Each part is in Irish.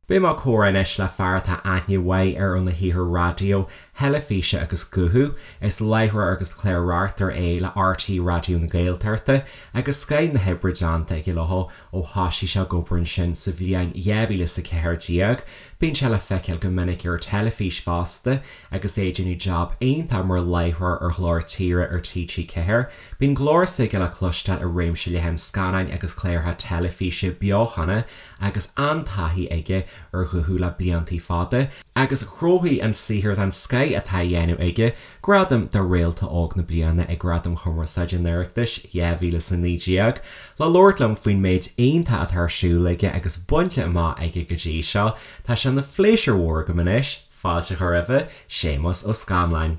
Beidh mé ag comhrá anois le fear atá aithne mhaith air óna shaothar raidió, theilifíse agus guthu. Is láithreoir agus clár-reachtaire é le RTÉ Raidió na Gaeltachta agus scoth na hoibre déanta aige leo ó thoisigh sé ag obair ansin sa bhliain 2014. Bíonn sé le feiceáil go minic ar an teilifís fosta agus é ag déanamh jab iontach mar láithreoir ar Ghlór Tíre ar TG4. Bíonn glór s'aige le cloisteáil i réimse leathan scannáin agus cláracha teilifíse beochana agus an-taithí aige ar ghuthú le bliantaí fada, agus ghnóthaigh an saothar den scoth atá á dhéanamh aige gradam do Réalta Óg na Bliana ag Gradaim Chumarsáide an Oireachtais 2019. Le labhairt liom faoin méid iontach atá ar siúl aige agus bainte amach aige go dtí seo, tá sé ina phléisiúr mhór agam anois fáilte a chur roimhe, Séamus Ó Scanláin.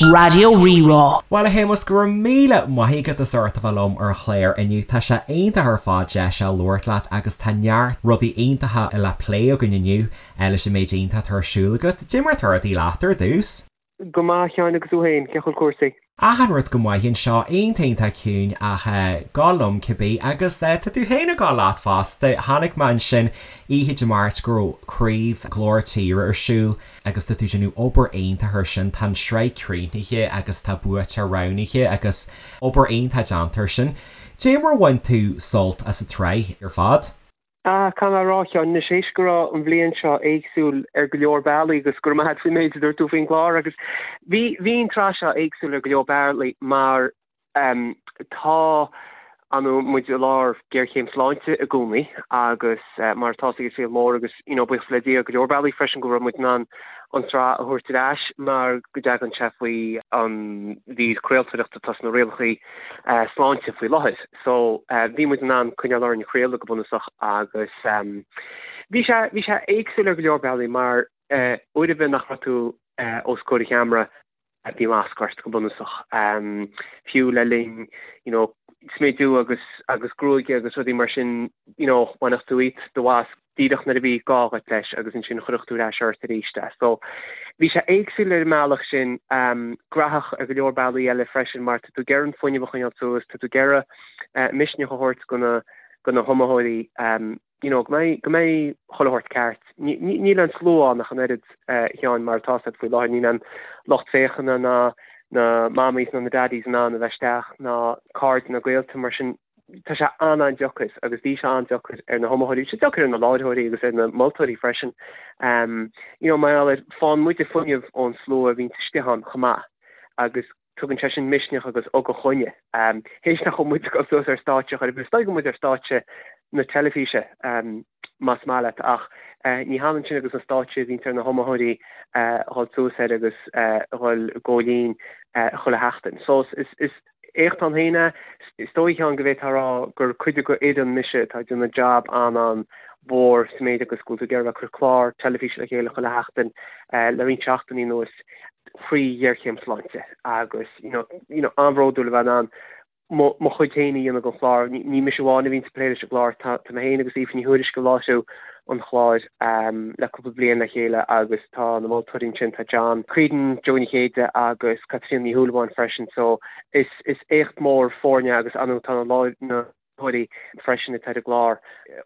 Raidió Rí-Rá. Bhuel a Shéamuis, go raibh míle maith agat as ucht a bheith liom ar an chlár inniu. Tá sé iontach ar fad deis a labhairt leat agus tá neart rudaí iontacha le plé againn inniu leis an méid iontach atá ar siúl agat. Dé mar atá rudaí leat ar dtús? Go maith, a Sheáin, agus tú féin, cén chaoi a bhfuil cúrsaí? Achan rud go maith anseo, iontach iontach ciúin ach ag gabháil liom cibé agus tá tú féin ag gabháil leat fosta. Chonaic mé ansin oíche Dé Máirt go raibh craobh Glór Tíre ar siúl agus tá tú ag déanamh obair iontach ar sin. Tá an tsraith críochnaithe agus tá buaiteoir roghnaithe agus obair iontach déanta ar sin. Dé mar a bhain tú sult as an tsraith ar fad? Ah, caithfidh mé a rá, a Sheáin, anois éist go raibh an bhliain seo éagsúil ar go leor bealaí agus go raibh maith agat faoin méid a dúirt tú faoin gclár agus bhí, bhí an tsraith seo éagsúil ar go leor bealaí mar ehm tá, ar ndóigh, muid i lár géarchéim sláinte i gcónaí agus mar atá ag an saol mór agus you know buíochas le Dia ar go leor bealaí freisin go raibh muid in ann an tsraith a thabhairt ar ais mar go dtagann sé faoi an mhír craoltóireachta atá sna rialacha sláinte faoi láthair. So bhí muid in ann coinneáil orainn ag craoladh go bunúsach agus bhí sé, bhí sé éagsúil ar go leor bealaí mar uair ar bith nach raibh tú os comhair an cheamara bhí masc ort go bunúsach. Fiú le linn you know smidiú agus agus gruaige agus rudaí mar sin you know bhainfeadh tú dhíot do mhasc díreach nuair a bhí gá agat leis agus ansin chuirfeadh tú ar ais ort arís é. So bhí sé éagsúil ar an mbealach sin, graitheach ar go leor bealaí eile freisin mar tá tú ag iarraidh an fuinneamh a choinneáil suas, tá tú ag iarraidh misneach a thabhairt go na go na hiomaitheoirí you know go mbeidh go mbeidh chuile shórt ceart. Níl an slua ann ach an oiread a Sheáin mar atá siad faoi láthair, níl an lucht féachana ná na mammies ná na daddies in ann a bheith isteach ná cairde ná gaolta mar sin tá sé an-an-deacair agus bhí sé an-deacair ar na hiomaitheoirí, bhí sé deacair ar na láithreoirí agus ar na moltóirí freisin. You know, mar gheall ar, faigheann muide fuinneamh ón slua a bhíonns istigh ann chomh maith agus tugann sé sin misneach agus ugach dhúinne. Théis nach bhfuil muid ag dul suas ar stáitse chor ar bith, is dóigh go bhfuil muid ar stáitse na teilifíse más maith leat ach ní hionann sin agus an stáitse a bhíonns ar na hiomaitheoirí a dhul suas air agus a dhul i gcomhlín chuile sheachtain. So is, is, Éacht ann féin é. Is dóigh, a Sheáin, go bhféadfá a rá gur cuid de fhoireann mise atá ag déanamh jab an-an-mhór sa méid agus go bhfuil tú ag iarraidh a bheith ag cur clár teilifíse le chéile chuile sheachtain le roinnt seachtainí anuas faoi ghéarchéim sláinte agus you know, you know, an-bhródúil a bheith in ann mo mo chuid féin a dhéanamh den chlár. Ní mise amháin a bhíonns ag plé leis an gclár, tá tá mé féin agus Aoife Ní Thuairisg ag láithriú an chláir le cúpla bliain le chéile agus tá na moltóirí ansin, tá John Creedon, Joe Ní Chéide agus Caitríona Ní Shúilleabháin freisin so is is éacht mór foirne agus ar ndóigh tá na láithreoirí freisin atá ar an gclár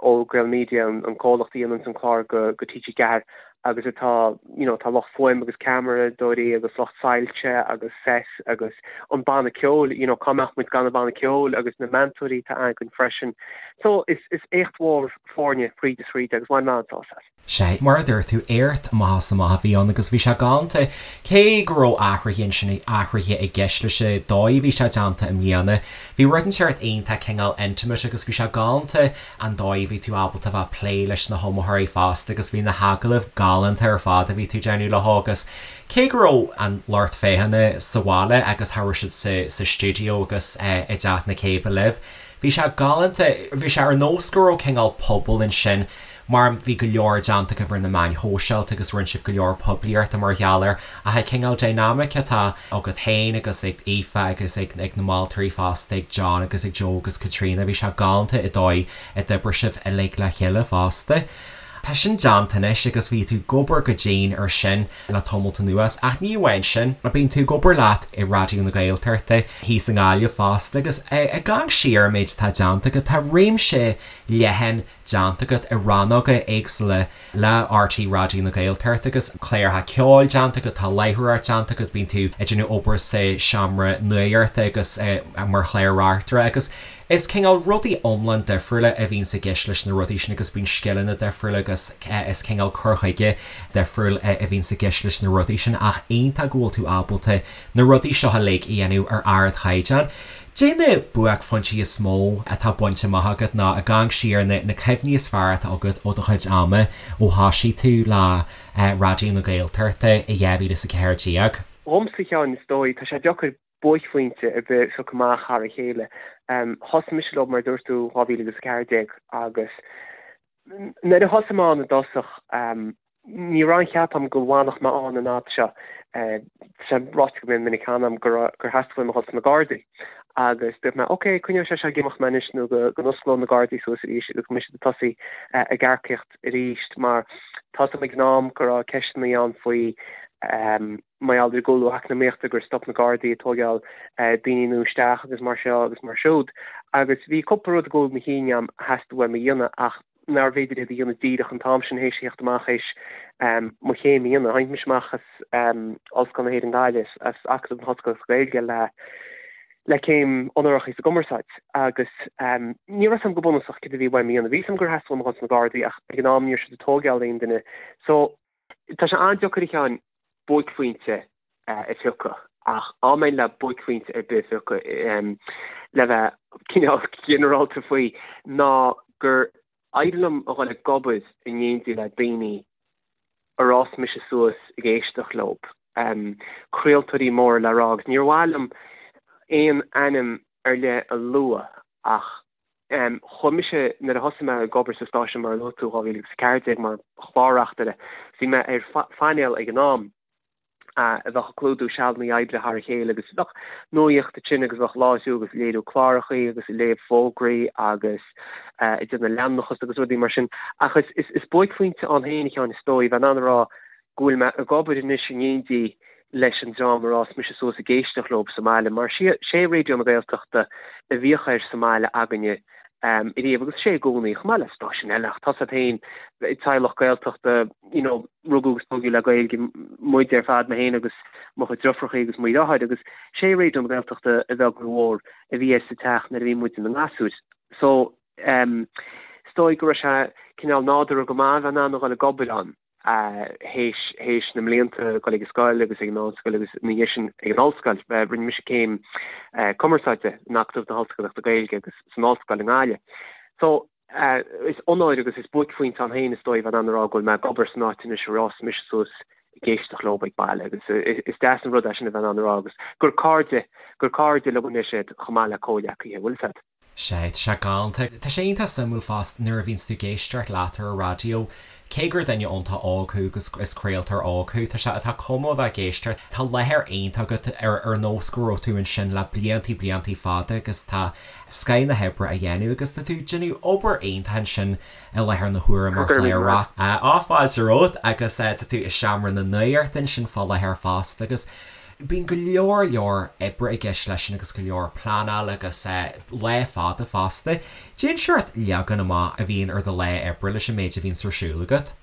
ó Gaelmedia, an comhlacht a dhéananns an clár go go TG4 agus atá you know tá lucht fuaim agus ceamaradóirí agus lucht soilse agus set agus an banna ceoil you know cá mbeadh muid gan an banna ceoil agus na meantóirí atá againn freisin so is is éacht mhór foirne fríd is fríd agus bhain mé an-sásamh as. Sea, mar a dúirt tú, éacht amach is amach a bhí ann agus bhí sé galánta. Cé go raibh athruithe ansin, athruithe i gceist leis an dóigh a bhí sé déanta i mbliana, bhí rud inteacht iontach cineál intimate agus bhí sé galánta an dóigh a bhí tú ábalta a bheith ag plé leis na hiomaitheoirí fosta agus bhí na hagallaimh galánta ar fad a bhí tú ag déanamh leo agus cé go raibh an lucht féachana sa bhaile agus cha raibh siad sa sa stiúideo agus i dTeach na Céibhe libh, Bhí sé galánta, bhí sé ar nós go raibh cineál pobal ansin mar bhí go leor déanta agaibh ar na meáin shóisialta agus rinne sibh go leor poiblíochta mar gheall air ach an cineál dynamic atá agat féin agus ag Aoife agus ag ag na moltóirí fosta, ag John agus ag Joe agus Caitríona, bhí sé galánta an dóigh a d'oibrigh sibh uilig le chéile fosta. Tá sin déanta anois agus bhí tú ag obair go dian ar sin le tamalt anuas ach ní amháin sin, bíonn tú ag obair leat i Raidió na Gaeltachta thíos i nGaillimh fosta agus ag amharc siar ar an méid atá déanta agat, tá réimse leathan déanta agat i rannóga éagsúla le RTÉ Raidió na Gaeltachta agus cláracha ceoil déanta agat, tá láithreoireacht déanta agat, bíonn tú ag déanamh obair sa seomra nuachta agus mar chlár-reachtaire agus is cineál rudaí iomlán difriúla a bhíonns i gceist leis na rudaí sin agus bíonn scileanna difriúla agus is cineál cur chuige difriúil a bhíonns i gceist leis na rudaí sin ach iontach go bhfuil tú ábalta na rudaí seo uilig a dhéanamh ar ardchaighdeán. Cad é na buaicphointí is mó atá bainte amach agat nó ag amharc siar na cuimhní is fearr atá agat ó do chuid ama ó thosaigh tú le Raidió na Gaeltachta i 2014? Dhomsa, a Sheáin, is dóigh, tá sé deacair buaicphointe ar bith a phiocadh amach thar a chéile. Thosaigh mise leo, mar a dúirt tú, 2014 agus nuair a thosaigh mé ann i dtosach, Ní raibh aon cheap agam go bhfanfadh mé ann an fhad seo. Tá sé ráite go mion minic cheana agam gur theastaigh uaim a dhul sna Gardaí. Agus dúirt mé, ok, coinneoidh sé seo ag imeacht mé anois nó go n-osclóidh na Gardaí suas arís agus go mbeidh siad ag tosaí ag earcaíocht arís mar tá 'fhios a'm ag an am go raibh ceisteanna ann faoi mar gheall ar an gcúlú eacnamaíochta gur stop na Gardaí ag tóigeáil daoine nua isteach agus mar seo agus mar siúd. Agus bhí cúpla rud ag gabháil mo chinn agam a theastaigh uaim a dhéanamh ach nárbh fhéidir iad a dhéanamh díreach an t-am sin théis a theacht amach théis mo chéim a dhéanamh. Tháinig mise amach as Ollscoil na hÉireann Gaillimh, as Acadamh na hOllscolaíochta Gaeilge le le céim onórach sa gcumarsáid agus ní raibh 'fhios a'm go bunúsach céard a bhí uaim a dhéanamh. Bhí 'fhios a'm gur theastaigh uaim a dhul sna Gardaí ach ag an am ní raibh siad ag tóigeáil aon duine. So Tá sé an-deacair a Sheáin buaicphointe a phiocadh ach dá mbeinn le buaicphointe ar bith a phiocadh le bheith cineál ginearálta faoi ná gur éirigh liom a dhul ag obair in éindí le daoine ar fhás mise suas ag éisteacht leo, craoltóirí móra le rá agus níor mhaith liom aon ainm ar leith a lua ach Chuaigh mise, nuair a thosaigh mé ag obair sa stáisiún mar a luaigh tú, 2014 mar chlár-reachtaire, bhí mé ar phainéal ag an am a bheadh ag clúdú sealanna oibre thar a chéile agus bheadh nuaíocht ansin agus bheadh láithriú agus léiriú clárachaí agus ag léamh fógraí agus ag déanamh leanúnachas agus rudaí mar sin. Ach is buaicphointe ann féin, a Sheáin, is dóigh, bheith in ann a rá go bhfuil mé ag obair anois in éindí leis an dream ar fhás mise suas ag éisteacht leo sa mbaile, mar sé Raidió na Gaeltachta a bhíodh air sa mbaile againne ariamh agus sé i gcónaí, chomh maith le stáisiúin eile, ach tá 's agat féin, teaghlach Gaeltachta, you know, rugadh agus tógadh le Gaeilge muid ar fad, mé féin agus mo chuid deirfiúrachaí agus mo dheartháir, agus sé Raidió na Gaeltachta a bheag nó a mhór a bhí air sa teach nuair a bhí muid ina ngasúir. So, is dóigh go raibh sé cineál nádúrtha go maith a bheith in ann a dhul ag obair ann. théis théis na mblianta ag dul ag an scoil agus ag an meánscoil agus ina dhiaidh sin ag an ollscoil. Rinne mise céim cumarsáide in Acadamh na hOllscolaíochta Gaeilge agus san ollscoil i nGaillimh. So, is onóir agus is buaicphointe ann féin is dóigh bheith in ann a rá go bhfuil mé ag obair san áit anois ar fhás mise suas ag éisteacht leo ag baile agus is deas an rud é sin a bheith in ann a rá agus gur cairde gur cairde liom anois iad chomh maith le comhghleacaithe, bhfuil 'fhios a'd. Sea, tá sé galánta. Tá sé iontach suimiúil fosta nuair a bhíonns tú ag éisteacht leat ar an raidió, cé gur duine iontach óg thú agus is craoltóir óg thú, tá sé, tá cuma a bheith ag éisteacht, tá láthair iontach agat ar ar nós go raibh tú ansin le bliantaí bliantaí fada agus tá scoth na hoibre á dhéanamh agus tá tú ag déanamh obair iontach ansin i láthair na huaire mar chlár. Á, fáilte romhat agus tá tú i seomra na nuachta ansin fá láthair fosta agus Bíonn go leor leor oibre i gceist leis sin agus go leor pleanála agus lá fada fosta. Cén seort leagan amach a bhíonn ar do lá oibre leis an méid a bhíonns ar siúl agat.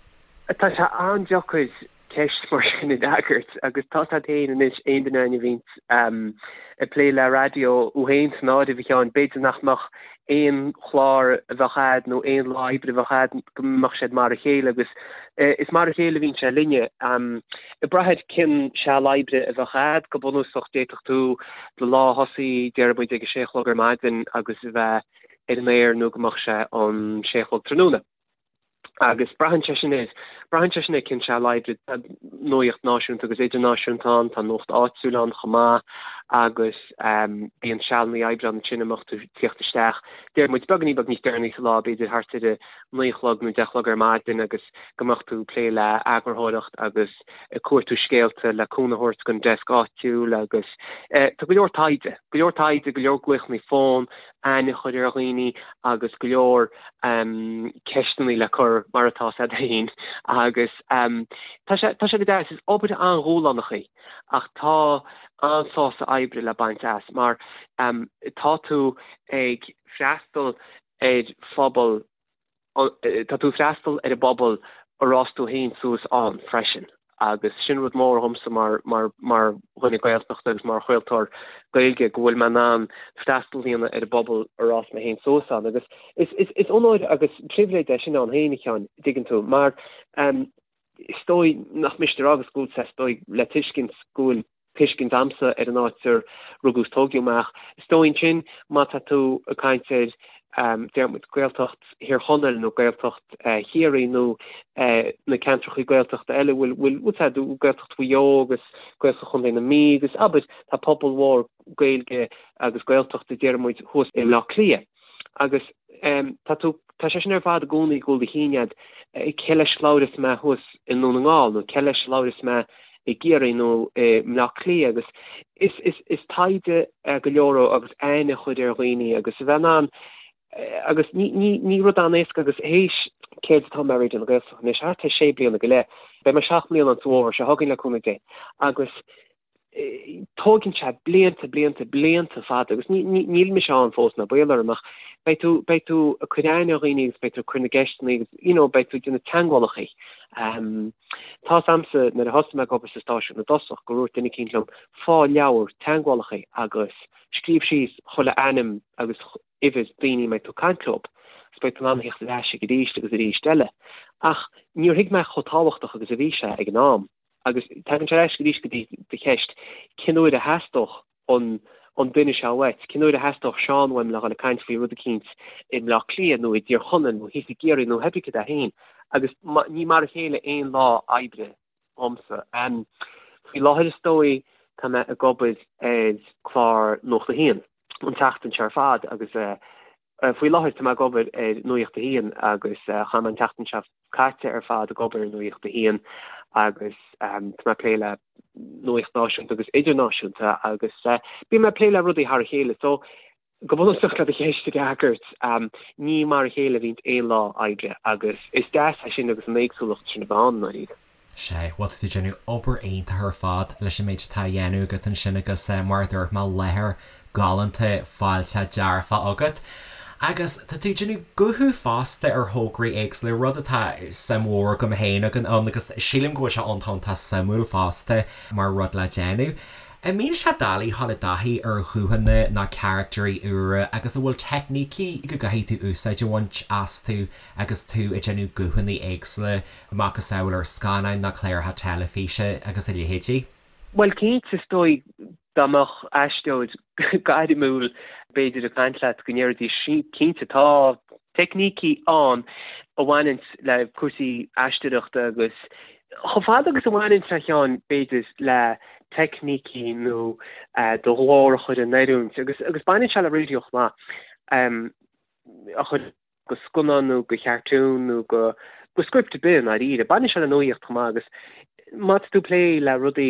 Tá sé an-deacair ceist mar sin a fhreagairt agus tá 's agat féin anois, aon duine againn a bhíonns ag plé le raidió, thú féin san áireamh a Sheáin, b'fhéidir nach mbeadh aon chlár a bheadh a'd nó aon lá oibre a bheadh a'd go mbeadh siad mar a chéile agus is mar a chéile a bhíonn sé linne. Ag brath ar cén seal oibre a bheadh a'd, go bunúsach d'fhéadfadh tú do lá a thosaí déarfaidh muid ag a sé a chlog ar maidin agus a bheith ar an aer nó go mbeadh sé an sé a chlog tráthnóna. Agus braitheann sé sin ar, braitheann sé sin ar cén seal oibre, tá nuaíocht náisiúnta agus idirnáisiúnta ann, tá nuacht áitiúil ann chomh maith agus bíonn sealanna oibre ann ansin a mbeadh tú ag tíocht isteach, deir muid, beagáinín beag níos deireanaí sa lá, b'fhéidir thart ar a naoi a chlog nó deich a chlog ar maidin agus go mbeadh tú ag plé le eagarthóireacht agus ag cuartú scéalta le cúnamh a thabhairt don desk áitiúil agus tá go leor taighde, go leor taighde, go leor glaochanna fóin, aithne a chur ar dhaoine agus go leor ceisteanna le cur mar atá 's agat féin agus tá sé tá sé go deas, is obair an-dhúshlánach í ach tá an-sásamh oibre le baint as mar tá tú ag freastal ar phobal. Tá tú ag freastal ar an bpobal ar fhás tú féin suas ann freisin agus sin rud mór dhomsa mar mar mar dhuine Gaeltachta agus mar chraoltóir Gaeilge go bhfuil mé in ann freastal a dhéanamh ar an bpobal ar fhás mé féin suas ann agus is is is onóir agus pribhléid é sin ann féin a Sheáin, dtuigeann tú, mar is dóigh nach miste a rá agus go bhfuil sé is dóigh le tuiscint go bhfuil tuiscint a'msa ar an áit ar rugadh is tógadh mé ach is dóigh ansin má tá tú ag caint ar deir muid Gaeltacht Thír Chonaill nó Gaeltacht Chiarraí nó na ceantracha Gaeltachta eile bhfuil bhfuil bhfuil sé Gaeltacht Mhaigh Eo agus Gaeltacht Chontae na Mí agus abair tá pobal mhór Gaeilge agus Gaeltachta deir muid thuas i mBleá Cliath agus tá tú tá sé sin ar fad i gcónaí i gcúl do chinn a'd cé leis a labhras mé thuas i nDún na nGall nó cé leis a labhras mé i gCiarraí nó i mBleá Cliath agus is is is taighde go leor agus aithne a chur ar dhaoine agus a bheith in ann agus ní ní ní rud an-éasca agus théis céard atá mé ar Raidió na Gaeltachta anois thart ar sé bliana go leith beidh mé 7 mbliana an fómhar seo chugainn le cúnamh Dé agus tógann sé blianta, blianta, blianta fada agus níl mise ann fós ná baol orm ach beidh tú, beidh tú ag cur aithne ar dhaoine agus beidh tú ag cur na gceisteanna agus you know beidh tú ag déanamh teagmhálacha. Tá's a'msa nuair a thosaigh mé ag obair sa stáisiún i dtosach gur dhúirt duine eicínt liom fág leabhar teagmhálacha agus scríobh síos chuile ainm agus uimhir daoine a mbeidh tú ag caint leo agus beidh tú in ann a theacht ar ais ag arís agus arís eile. Ach níor thuig mé chomh tábhachtach agus a bhí sé ag an am. Agus tagann sé ar ais arís go dtí do cheist, cén uair a theastódh an an duine seo uait? Cén uair a theastódh Seán uaim le dhul ag caint faoi rud eicínt i mBleá Cliath nó i dTír Chonaill nó thíos i gCiarraí nó pé cad é féin? Agus ní mar a chéile aon lá oibre dhomsa. Faoi láthair is dóigh tá mé ag obair ar chlár Nuacht a hAon an tseachtain seo ar fad agus Faoi láthair tá mé ag obair ar Nuacht a hAon agus chaith mé an tseachtain seo caite ar fad ag obair ar Nuacht a hAon agus tá mé ag plé le nuacht náisiúnta agus idirnáisiúnta agus bíonn mé ag plé le rudaí thar a chéile. So go bunúsach le do cheist a fhreagairt, ní mar a chéile a bhíonn aon lá oibre agus is deas é sin agus an éagsúlacht sin a bheith ann i ndáiríre. Sea, bhuel tá tú ag déanamh obair iontach ar fad leis an méid atá á dhéanamh agat ansin agus mar a dúirt mé, láthair galánta fáilteach dearfach agat. Agus tá tú ag déanamh guthú fosta ar thograí éagsúla, rud atá suim mhór agam féin ann agus sílim go bhfuil sé iontach iontach suimiúil fosta mar rud le déanamh. An mbíonn sé doiligh dhul i dtaithí ar ghuthanna nó caractéirí úra agus an bhfuil teicnící go gcaithfidh tú úsáid a bhaint astu agus tú ag déanamh guthanna éagsúla macasamhail ar scannáin nó cláracha teilifíse agus a leithéidí. Bhuel, cinnte, is dóigh dá mbeadh aisteoir gairmiúil b'fhéidir ag caint leat go ndéarfaidís cinnte tá teicnící ann a bhaineanns le cúrsaí aisteoireachta agus chomh fada agus a bhaineanns a Sheáin b'fhéidir le teicnící nó do ghlór a chur in oiriúint agus agus baineann sé le raidió chomh maith a chur go scannán nó go chartún nó go go script ar bith i ndáiríre. Baineann sé le nuaíocht chomh maith agus má tá tú ag plé le rudaí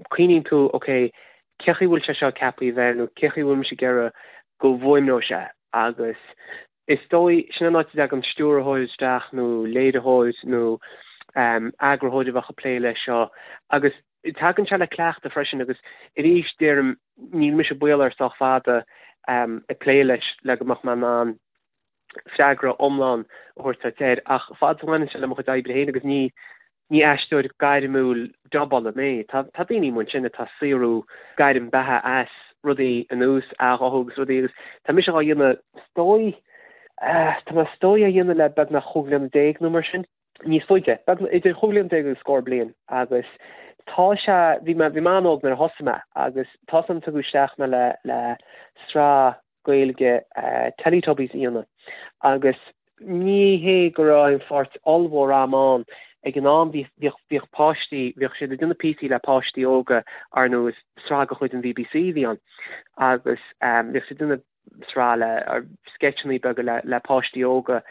cuimhníonn tú ok cé chaoi bhfuil sé seo ceaptha a bheith nó cé chaoi bhfuil mise ag iarraidh go bhfuaimneoidh sé agus is dóigh sin an áit a dtagann stiúrthóir isteach nó léiritheoir nó eagarthóir a bheadh ag plé leis seo agus tagann sé le cleachtadh freisin agus arís deirim níl mise baol air sách fada ag plé leis le go mbeadh mé in ann freagra iomlán a thabhairt duit air ach fad is a bhaineann sé le mo chuid oibre féin agus ní ní aisteoir gairmiúil dubála mé. Tá tá daoine amuigh ansin atá ag saothrú gairm beatha as rudaí ar nós athghuthú agus rudaí agus tá mise á dhéanamh is dóigh tá mé is dóigh á dhéanamh le beagnach chúig bhliana déag nó mar sin. níos faide, beagnach idir chúig bhliana déag agus scór bliain agus tá sé, bhí mé, bhí mé an-óg nuair a thosaigh mé agus tá 's a'm tugadh isteach mé le, le sraith Gaeilge Teletubbies a dhéanamh agus ní hé go raibh aon pháirt ollmhór a'm ann ag an am, bhí, bhíodh, bhíodh páistí, bhíodh siad ag déanamh píosaí le páistí óga, ar ndóigh is sraith de chuid an BBC a bhí ann agus bhíodh siad ag déanamh sraith le sceitseanna beaga le le páistí óga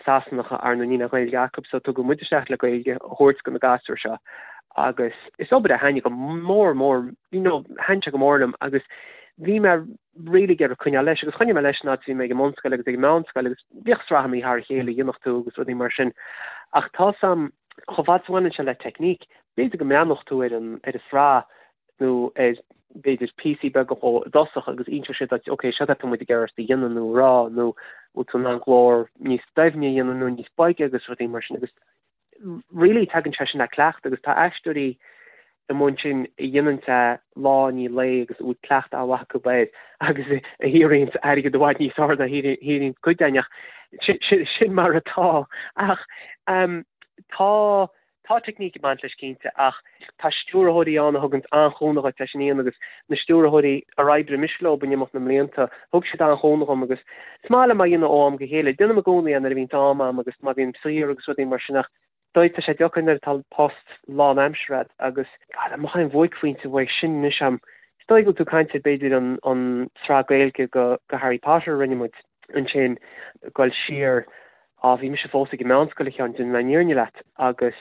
Sasanacha ar ndóigh níl aon Ghaeilge acu so tugadh muid isteach le Gaeilge a thabhairt do na gasúir seo agus is obair a thaitnigh go mór mór you know thaitnigh sé go mór liom agus bhí mé really ag iarraidh coinneáil leis agus choinnigh mé leis an fhad is bhí mé ag an mbunscoil agus ag an meánscoil agus bhíodh sraitheanna thar a chéile a dhéanfadh tú agus rudaí mar sin ach tá 's a'm chomh fada is a bhaineann sé le teicníc b'fhéidir go mbreathnódh tú ar an ar an sraith nó ar. b'fhéidir píosaí beaga dhó i dtosach agus inseoidh siad duit ok seo atá muid ag iarraidh ort a dhéanamh nó a rá nó bhfuil tú in ann glór níos doimhne a dhéanamh nó níos boige agus rudaí mar sin agus really tagann sé sin le cleachtadh agus tá aisteoirí i mbun sin a dhéanann é lá i ndiaidh lae agus a bhfuil cleachtadh an-mhaith acu air agus a shaothraíonn airgead i bhfad níos fearr ná a shaothraíonn cuid againn ach sin mar atá ach tá Tá teicníc ag baint leis cinnte ach tá stiúrthóirí ann a thuganns an-chúnamh dhuit leis sin a dhéanamh agus na stiúrthóirí ar oibrigh mise leo in imeacht na mblianta, thug siad an-chúnamh dhom agus is maith liom é a dhéanamh ó am go chéile. Déanaim i gcónaí é nuair a bhíonns am a'm agus má bhím saor agus rudaí mar sin ach dóigh tá sé deacair nuair atá post lánaimseartha a'd agus God, an mbeadh aon bhuaicphointe uaidh sin anois a'm. Is dóigh go bhfuil tú ag caint ar b'fhéidir an an tsraith Gaeilge go go Harry Potter a rinne muid ansin ag dul siar Á, bhí mise fós ag an meánscoil, a Sheáin, déanfaidh mé an fhírinne leat, agus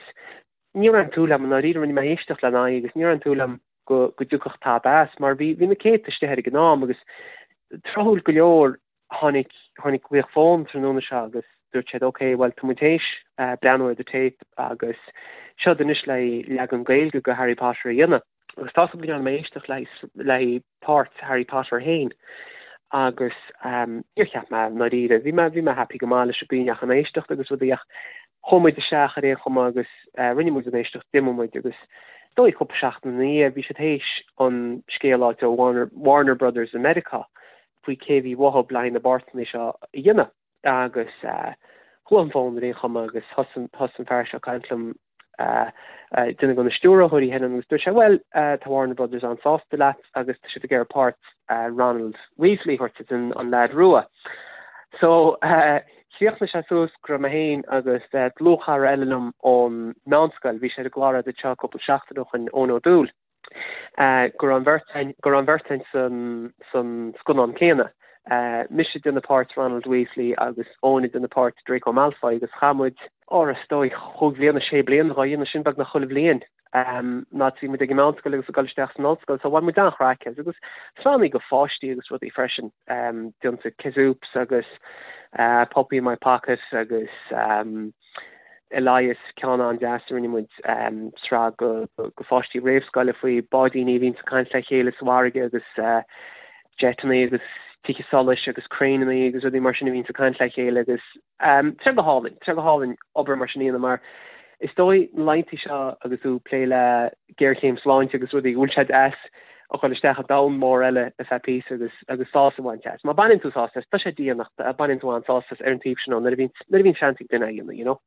ní raibh aon tsúil agam, i ndáiríre, rinne mé éisteacht lena aghaidh agus ní raibh aon tsúil agam go, go dtiocfadh tada as, mar bhí, bhí na céadta istigh air ag an am agus tráthúil go leor tháinig, tháinig glaoch fóin tráthnóna seo agus dúirt siad ok, bhuel tá muid théis breathnú ar do téip agus seod anois le leagan Gaeilge go Harry Potter a dhéanamh. Agus tá 's agam go ndearna mé éisteacht le haghaidh páirt Harry Potter féin agus níor cheap mé i ndáiríre, bhí mé, bhí mé happy go maith leis an gcaoi a ndeachaigh an éisteacht agus rudaí ach chuaigh muid isteach ar aon chuma agus rinne muid an éisteacht, d'imigh muid agus is dóigh cúpla seachtain ina dhiaidh bhí siad théis an scéal a fháilt ó Warner, Warner Brothers i Meiriceá faoi cé a bhí uathu le haghaidh na bpáirteanna seo a dhéanamh. Agus ghlaoigh an fón ar aon chuma agus thosaigh an fear seo ag caint liom, duine de na stiúrthóirí féin agus dúirt sé, bhuel, tá Warner Brothers an-sásta leat agus tá siad ag iarraidh páirt Ronald Weasley a thabhairt duit, an leaid rua. So, chríochnaigh sé suas go raibh mé féin agus dlúthchara eile liom ón meánscoil, bhí sé ar an gclár agat anseo cúpla seachtain ó shin, Eoin Ó Dúill. go raibh an bheirt againn, go raibh an bheirt againn san, san scannán céanna. Mise ag déanamh páirt Ronald Weasley agus Eoin ag déanamh páirt Draco Malfoy agus chaith muid, ó is dóigh, chúig bhliana, sé bliana dhá dhéanamh sin beagnach chuile bhliain nuair a bhí muid ag an meánscoil agus ag dul isteach san ollscoil so bhain muid an-chraic as agus sraitheanna go pháistí agus rudaí freisin, déanta Kazoops agus Puppy in my Pocket agus Elias, ceann an-deas a rinne muid, sraith go pháistí réamhscoile faoi báidíní a bhíonns ag caint le chéile sa bhfarraige agus jeiteanna agus tithe solais agus craenanna agus rudaí mar sin a bhíonns ag caint le chéile agus tá sé go hálainn, tá sé go hálainn obair mar sin a dhéanamh mar is dóigh na laethanta seo agus tú ag plé le géarchéim sláinte agus rudaí go bhfuil sé deas a dhul isteach i domhan mór eile ar feadh píosa agus agus sásamh a bhaint as. Má baineann tú sásamh as, tá sé dian ach baineann tú an-sásamh as ar an taobh sin nuair a bhíonn nuair a bhíonn seans ag duine é a dhéanamh, you know.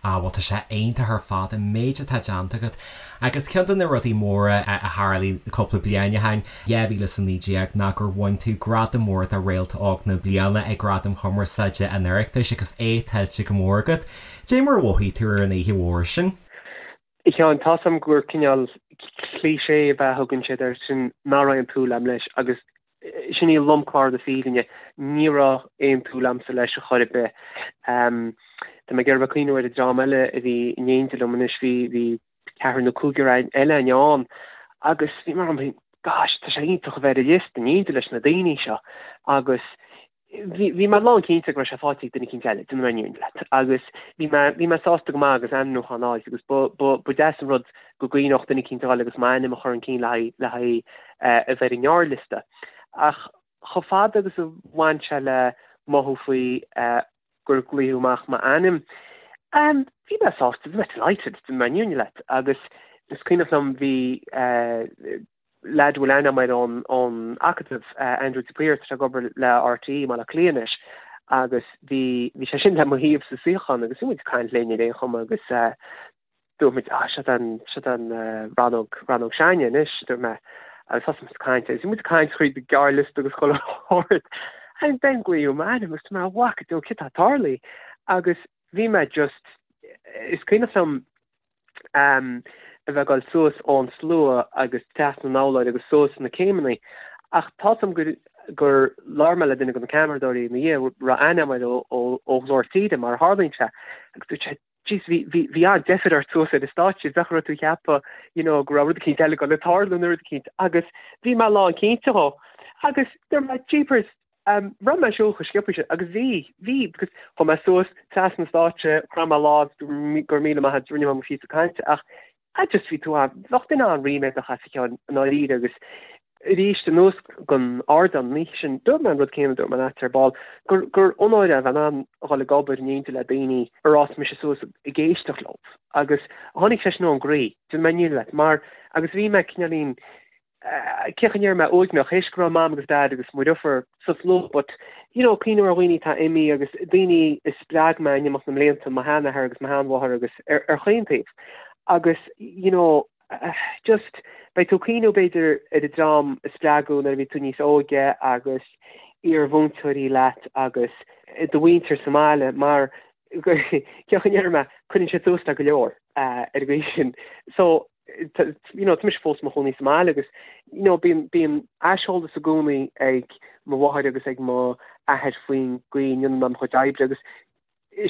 Ah bhuel tá sé iontach ar fad an méid atá déanta agat agus ceann de na rudaí móra a tharlaigh cúpla bliain ó shin, 2019, ná gur bhain tú gradam mór do Réalta Óg na Bliana ag Gradaim Chumarsáide an Oireachtais agus é tuillte go mór agat. Dé mar a mhothaigh tú ar an oíche mhór sin? A Sheáin, tá's a'm gur cineál cliché ab ea a thugann siad air sin, nach raibh aon tsúil a'm leis agus sin í lomchlár na fírinne, ní raibh aon tsúil a'msa leis a chor ar bith. Tá mé ag iarraidh a bheith ag cuimhniú ar an dream eile a bhí in éindí liom anois, bhí, bhí ceathrar nó cúigear eile againn ann agus bhí mé a'm féin, gosh, tá sé iontach a bheith ar an liosta in éindí leis na daoine seo agus Bhí, bhí mé lán cinnte go raibh sé faighte ag duine eicínt eile, déanfaidh mé an fhírinne leat, agus bhí mé, bhí mé sásta go maith agus ainmniúchán a fháilt agus ba, ba, ba deas an rud go gcuimhneodh duine eicínt a dhul agus m'ainm a chur chun cinn le haghaidh, le haghaidh a bheith ar an ngearrliosta. Ach chomh fada agus a bhain sé le mothú faoi gur glaodh amach m'ainm, bhí mé sásta, bhí mé delighted, déanfaidh mé an fhírinne leat, agus is cuimhneach liom bhí, leaid a bhfuil aithne agam air ón Acadamh, Andrew de Paor, tá sé ag obair le RTÉ i mBaile Átha Cliath anois agus bhí bhí sé sin le mo thaobh sa suíochán agus bhí muid ag caint linn ar aon chuma agus dúirt muid ah seo an seo an rannóg rannóg s'againne anois dúirt mé agus thosaigh muid ag caint agus bhí muid ag caint thríd an gearrliosta agus chuile shórt and then glaodh m'ainm agus dúirt mé mhac Dé céard atá ag tarlú agus bhí mé just is cuimhneach liom a bheith ag dul suas ón slua agus trasna an urláir agus suas na céimeanna. Ach tá's agam gur gur labhair mé le duine de na ceamaradóirí ina dhiaidh a raibh aithne agam air ó ó Ghlór Tíre mar a tharlaíonn sé agus dúirt sé Jeez bhí bhí bhí an-deifir ort suas ar an stáitse bheadh raibh tú ag ceapadh you know go raibh rud eicínt eile ag dul ag tarlú nó rud eicínt agus bhí mé lán cinnte dhó agus dúirt mé jeepers Raibh mé ag siúl chomh sciobtha sin agus bhí, bhí, because chuaigh mé suas trasna an stáitse, chroith mé lámh, go raibh míle maith agat, rinne mé mo phíosa cainte ach I just bhí tú an, bheadh duine an-ríméadach as a Sheáin i ndáiríre agus. Arís, anuas gon ardán an oíche sin, dúirt mé an rud céanna a dúirt mé leat ar ball, gur gur onóir é a bheith in ann a dhul ag obair in éindí le daoine ar fhás mise suas ag éisteacht leo. Agus tháinig sé sin ón gcroí, déanfaidh mé an fhírinne leat, mar agus bhí mé cineáilín, cén chaoi a ndéarfaidh mé, uaigneach, théis go raibh Mam agus Dad agus mo dheirfiúr sa slua, but, you know, cuimhneamh ar dhaoine atá imithe agus daoine a spreag mé in imeacht na mblianta, mo sheanathair agus mo sheanmháthair agus ar ar chaon taobh. Agus, you know, just, beidh tú ag cuimhneamh b'fhéidir ar an dream a spreagadh nuair a bhí tú níos óige agus iar-mhúinteoirí leat agus do mhuintir sa mbaile mar cén chaoi a ndéarfaidh mé, cuireann siad suas le go leor ar an gcaoi sin. So, you know, tá mise fós i mo chónaí sa mbaile agus, you know, bíonn, bíonn aiseolas i gcónaí ag mo mháthair agus ag mo athair faoin gcaoi a ndéanann mé mo chuid oibre agus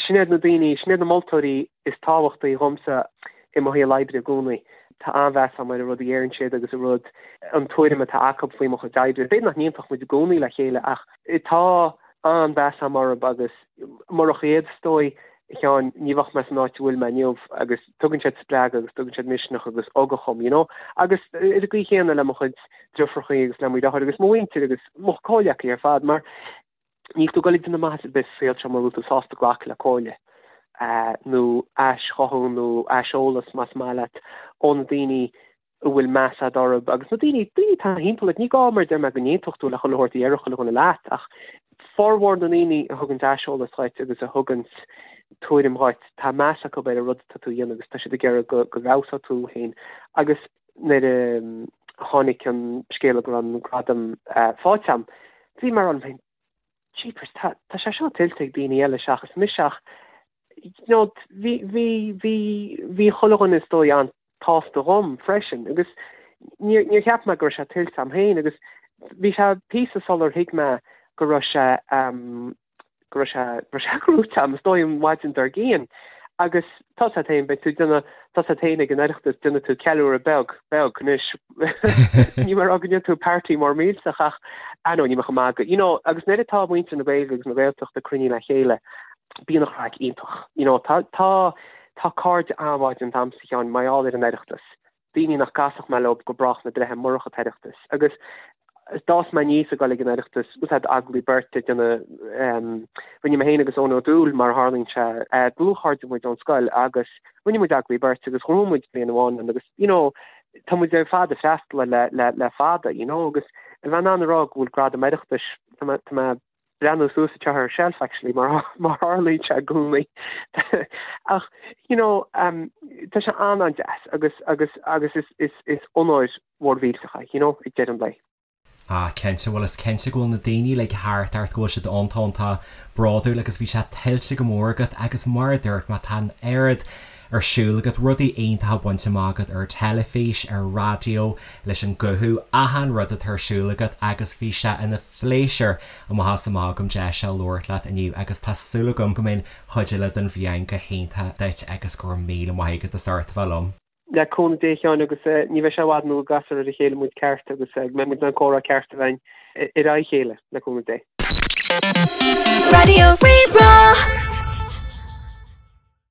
Sin iad na daoine, sin iad na moltóirí is tábhachtaí dhomsa i mo shaol oibre i gcónaí. Tá an-mheas agam ar an rud a dheireann siad agus an rud, an tuairim atá acu faoi mo chuid oibre. B'fhéidir nach n-aontódh muid i gcónaí le chéile ach tá an-mheas agam orthu agus murach iad, is dóigh, a Sheáin, ní bheadh mé san áit a bhfuil mé inniu agus tugann siad spreagadh agus tugann siad misneach agus ugach dhom, you know. Agus ar an gcaoi chéanna le mo chuid deirfiúrachaí agus le mo dheartháir agus mo mhuintir agus mo chomhghleacaithe ar fad mar Níl tú ag dul ag déanamh maitheas ar bith sa saol seo mura bhfuil tú sásta glacadh le comhairle, nó aischothú nó aiseolas, más maith leat, ó na daoine a bhfuil meas agat orthu agus na daoine, daoine atá thimpeall ort. Ní gá, mar a deir mé, go n-aontódh tú le chuile shórt a dhéarfadh chuile dhuine leat, ach formhór na ndaoine a thuganns aiseolas dhuit agus a thuganns tuairim dhuit, tá meas acu ar an rud atá tú a dhéanamh agus tá siad ag iarraidh go bhfeabhsóidh tú féin. Agus nuair a tháinig an scéala go raibh an gradam faighte agam, bhí mé ag rá liom féin, jeepers, tá, tá sé seo tuillte ag daoine eile seachas mise ach, you know, bhí, bhí, bhí, bhí chuile dhuine is dóigh an-tsásta dhom freisin agus níor, níor cheap mé go raibh sé tuillte agam féin agus bhí sé píosa sular thuig mé go raibh sé, go raibh sé, go raibh sé gnóite agam, is dóigh an mhaidin dár gcionn. Agus tá a fhios agat féin, beidh tú ag déanamh, tá a fhios agat féin ag an Oireachtas, déanfaidh tú ceiliúradh beag, beag anois. Níl mé ag rá go ndéanfaidh tú party mór millteach ach, I know, níl mé chomh maith go, you know, agus nuair atá muintir na Gaeilge agus na Gaeltachta cruinnithe le chéile, bíonn an chraic iontach. You know, tá, tá, tá cairde an-mhaith déanta agamsa, a Sheáin, mar gheall ar an Oireachtas. daoine nach gcasfadh mé leo go brách na breithe murach an tOireachtas. Agus d'fhás mé aníos ag dul ag an Oireachtas, bhfuil a fhios agat agallaimh beirte ag déanamh, rinne mé féin agus Eoin Ó Dúill, mar a tharlaíonn sé, dlúthchairde muid ón scoil agus rinne muid agallaimh beirte agus ghnóthaigh muid bliain amháin ann agus, you know, tá muid ar fad ag freastal air le, le, le fada, you know, agus a bheith in ann a rá go bhfuil gradam Oireachtais, tá mé, tá mé breathnú suas anseo ar shelf actually mar mar tharlaíonn sé i gcónaí ach you know um, tá sé an-an-deas agus agus agus is is is onóir mhór mhillteach é you know ag deireadh an lae. Ah cinnte, bhuel is cinnte go bhfuil na daoine uilig thart ort go bhfuil siad iontach bródúil agus bhí sé tuillte go mór agat agus mar a dúirt mé tá an oiread ar siúl agat, rudaí iontacha bainte amach agat ar teilifís, ar raidió, leis an guthú, achan rud atá ar siúl agat agus bhí sé ina phléisiúr amach is amach agam deis a labhairt leat inniu agus tá súil agam go mbeidh an chuid eile den bhliain go hiontach duit agus go raibh míle maith agat as ucht a bheith liom. Le cúnamh Dé a Sheáin agus ní bheidh sé i bhfad nó go gcasfar ar a chéile muid ceart agus go mbeidh muid in ann comhrá ceart a bheith againn ar aghaidh a chéile, le cúnamh Dé. Raidió Rí-Rá.